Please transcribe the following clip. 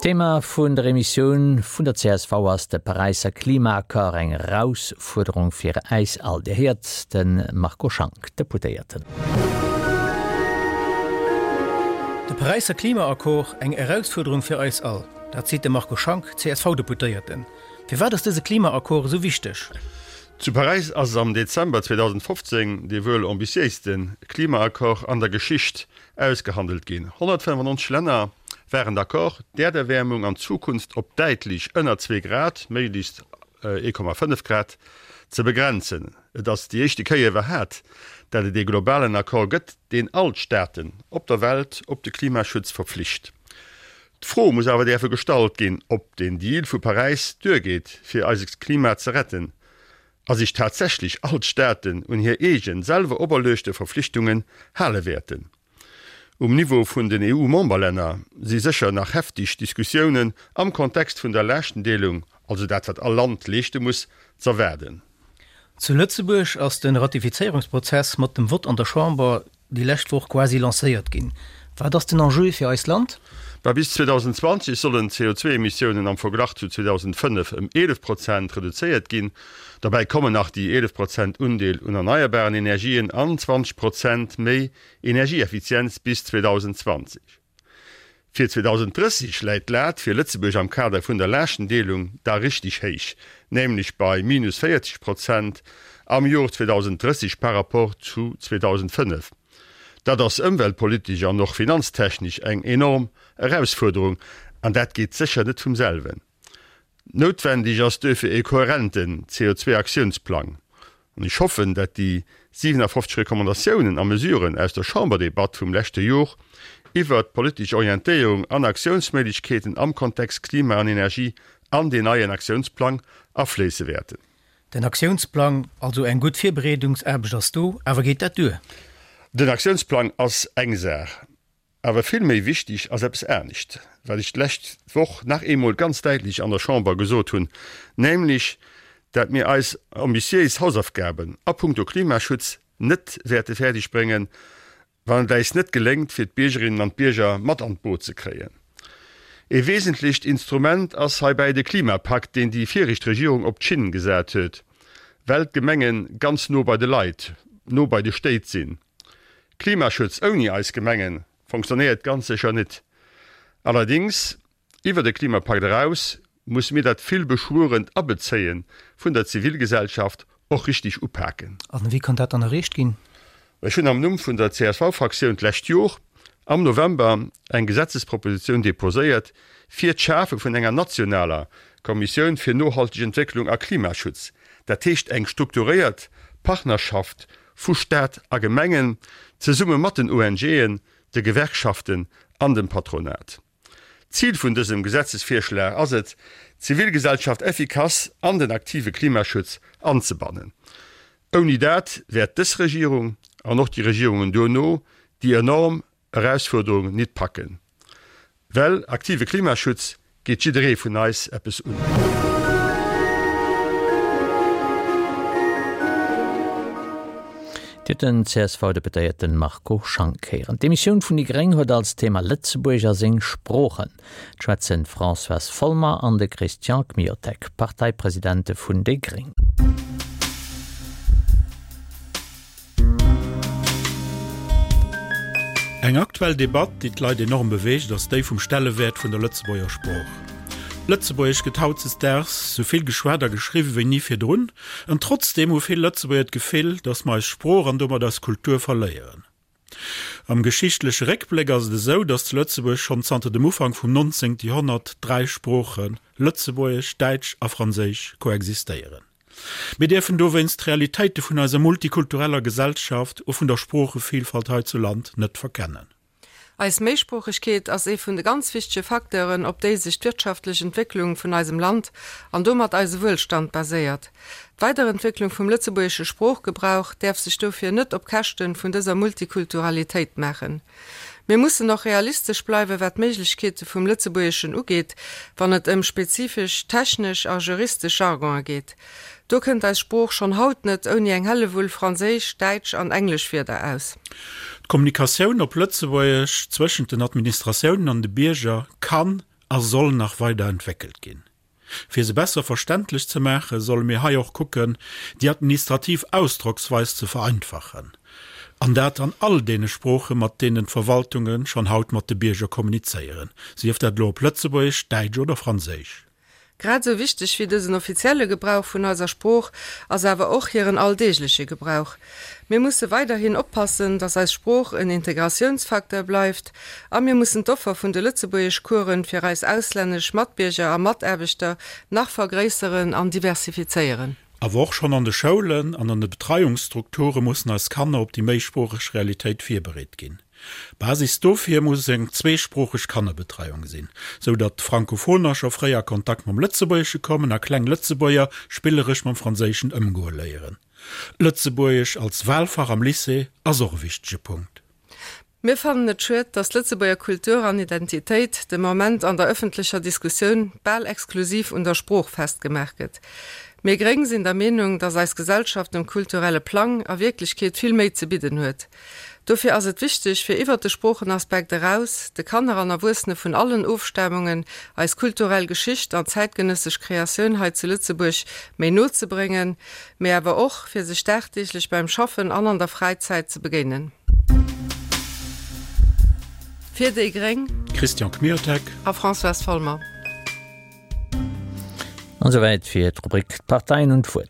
D'Thema vun der Emissioun vun der csv ass de Paräisser Klimaaccord, eng Erausfuerderung fir äis all. Dir héiert de Marco Schank, Deputéierten. De Paräisser Klimaaccord, eng Erausfuerderung fir eis all. Dat seet de Marco Schank, CSV-Deputéierten. Firwat ass dëse Klimaaccord esou wichteg? Zu Paräis ass am Dezember 2015 dee wuel ambitiéiste Klimaaccord an der Geschicht ausgehandelt ginn. 195 Länner waren d'accord, d'Äerderwäermung an Zukunft op däitlech ënner zwee Grad, méiglechst 1,5 Grad, ze begrenzen. Et ass déi éischte Kéier iwwerhat, dat et ee globalen Accord gëtt, deen all d'Staaten op der Welt op de Klimaschutz verpflicht. D'Fro muss awer däerfe gestallt ginn, ob den Deal vu Paräis duergeet, fir eise Klima ze retten, a sech tatsächlech all d'Staaten un hir eegen, selwer operluechte Verflichtungen hale wäerten. Um Niveau vun den EU-Memberlänner si sécher nach heftig Diskussiounen am Kontext vun der Laaschtenddeelung, also dat wat all Land leeschte muss, z'erwaarden. Zu Lëtzebuerg ass de Ratifizéierungsprozess mat dem Vott an der Chamber déi lescht Woch quasi lancéiert ginn. Wat ass den Enjeu fir eist Land? Bah, bis 2020 sollen d'CO2-Emissiounen am Verglach zu 2005 ëm 11 Prozent reduzéiert ginn. Derbäi kommen nach déi 11 Prozent Undeel un erneierbaren Energien an 20 Prozent méi Energieeffizienz bis 2020. Fir 2030 läit d'Lat fir Lëtzebuerg am Kader vun der Laaschtenddeelung da richteg héich, nämlech bei minus 40 Prozent am Jor 2030 par rapport zu 2005. Dat ass ëmweltpolitesch an och finanztechnesch eng enorm Erausfuerderung an dat geet sécher net vum selwen. Noutwendeg ass duerfir e kohärenten CO2-Aktiounsplang. An ech hoffen, dat déi 57 Recommandatiounen a Mesuren aus der Chamberdebatt vum leschte Jor iwwert d'politesch Orientéierung an Aktiounsméiglechkeeten am Kontext Klima an Energie an deen neien Aktiounsplang afléisse wäerten. Den Aktiounsplang, also eng gutt Virbereedungsaarbecht ass do, awer geet dat duer? Den Aktiounsplang ass eng Saach. Awer vill méi wichtig ass eppes anescht, wat ech d'lescht Woch nach eemol ganz däitlech an der Chamber gesot hunn, nämlech dat mir eis ambitiéis Hausaufgaben a puncto Klimaschutz net wäerte fäerdeg bréngen, wann et äis net geléngt, fir d'Biergerinnen an d'Bierger mat an d'Boot ze kréien. Ee wesentlecht Instrument ass heibäi de Klimapakt, deen déi viregt Regierung op d'Schinn gesat huet, well d'Gemenge ganz no bei de Leit, no bei de Stéit sinn. Klimaschutz ouni eis Gemengen fonctionnéiert ganz sécher nit. Allerdings, iwwer de Klimapakt eraus musse mir dat vill beschwuerent Abezéien vun der Zivilgesellschaft och richtig upaken. An wéi kann dat dann erreecht ginn? Ech hunn am Numm vun der CSV-Fraktioun d'lescht Jor am November eng Gesetzespropositioun deposéiert fir d'Schafe vun enger nationaler Kommissioun fir nohalteg Entwécklung a Klimaschutz, dat heescht eng strukturéiert Partnerschaft vu Staat a Gemengen, zesumme mat den ONGen, de Gewerkschaften an dem Patronat. Zil vun dësem Gesetzesvirschlag ass et, d'Zivilgesellschaft effikass an den aktive Klimaschutz anzebannen. Ouni dat wäert dës Regierung an och déi Regierungen duerno déi enorm Erausfuerderung nit packen. Well aktive Klimaschutz geet jidderee vun eis eppes un. Dir hutt den CSV-Deputéierten Marco Schank héieren. D'Emissioun vun déi gréng huet als Thema Lëtzebuerg a seng Sproochen. Et schwätzen d'Françoise Folmer an de Christian Kmiotek, Parteipresidente vun déi gréng. Eng aktuell Debatt, déi d'Leit enorm beweegt, ass déi vum Stellewäert vun der Lëtzebuerger Sprooch. Lëtzebuergesch gëtt hautzesdaags sou vill geschwat a geschriwwen wéi ni virdrun, an trotzdeem hu vill Lëtzebuerger d'Gefill, datt mer eis Sprooch an domat eis Kultur verléieren. Am geschichtleche Réckbléck ass et esou, datt zu Lëtzebuerg schonn zanter dem Ufank vum 19. Joerhonnert dräi Sproochen, Lëtzebuergesch, Däitsch a Franséisch, koexistéieren. Mir dierfen dowéinst d'Realitéite vun eiser multikultureller Gesellschaft a vun der Sproochevillfalt hei zu Land net verkennen. Eis Méisproochegkeet ass ee vun de ganz wichtege Facteuren, op déi sech d'wirtschaftlech Entwécklung vun eisem Land an domat eise Wuelstand baséiert. D'Weiderentwécklung vum lëtzebuergesche Sproochgebrauch däerf sech dofir net op Käschte vun dëser Multikulturalitéit maachen. Mir mussen och realistesch bleiwen, wat d'Méiglechkeete vum Lëtzebuergeschen ugeet, wann et ëm spezifesch technesch a juristesch Jargonë geet. Do kënnt eis Sprooch schonn haut net ouni eng Hellewull franséisch, däitsch an englesch Wierder aus. D'Kommunikatioun op Lëtzebuergesch zwëschent den Administratiounen an de Bierger kann. a soll nach weider entwéckelt ginn. Fir se besser verständlech ze maachen, solle mir hei och kucken, déi administrativ Ausdrocksweis ze vereinfachen, an dat an all deene Sproochen, mat deenen d'Verwaltunge schonn haut mat de Bierger kommunizéieren, sief dat elo op Lëtzebuergesch, Däitsch oder Franséisch. Grad esou wichteg wéi dësen offizielle Gebrauch vun eiser Sprooch ass awer och hiren alldeegleche Gebrauch. Mir musse weiderhin oppassen, datt eis Sprooch en Integratiounsfacteur bleift a mir mussen d'Offer vun de Lëtzebuergeschcoursen fir eis auslännesch Matbierger a Mataarbechter nach vergréisseren an diversifizéieren. Awer och schonn an de Schoulen an an de Betreiungsstrukture mussen eis Kanner op déi méisproocheg Realitéit virbereet ginn. Basis dofir muss eng zweesproocheg Kannerbetreiung sinn, sou datt Frankophoner scho fréi a Kontakt mam Lëtzebuergesche kommen a kleng Lëtzebuerger spilleresch mam Franséischen ëmgoe léieren. Lëtzebuergesch als Wahlfach am Lycée ass och e wichtege Punkt. Mir fannen et schued, datt d'Lëtzebuerger Kultur an Identitéit de Moment an der ëffentlecher Diskussioun bal exklusiv un der Sprooch festgemaach gëtt. Mir Gréng sinn der Meenung, datt eis Gesellschaft um kulturelle Plang a Wierklechkeet vill méi ze bidden huet. Dofir ass et wichteg, fir iwwert de Sproochenaspekt eraus, de Kanner an Erwuessene vun allen Ofstamungen eis kulturell Geschicht an zäitgenëssesch Kreatioun hei zu Lëtzebuerg méi no ze bréngen, mee awer och, fir sech dagdeeglech beim Schaffen an an der Fräizäit ze begéinen. Fir déi gréng. Christian Kmiotek. A Françoise Folmer. An esouwäit fir d'Rubrik D'Parteien hunn d'Wuert.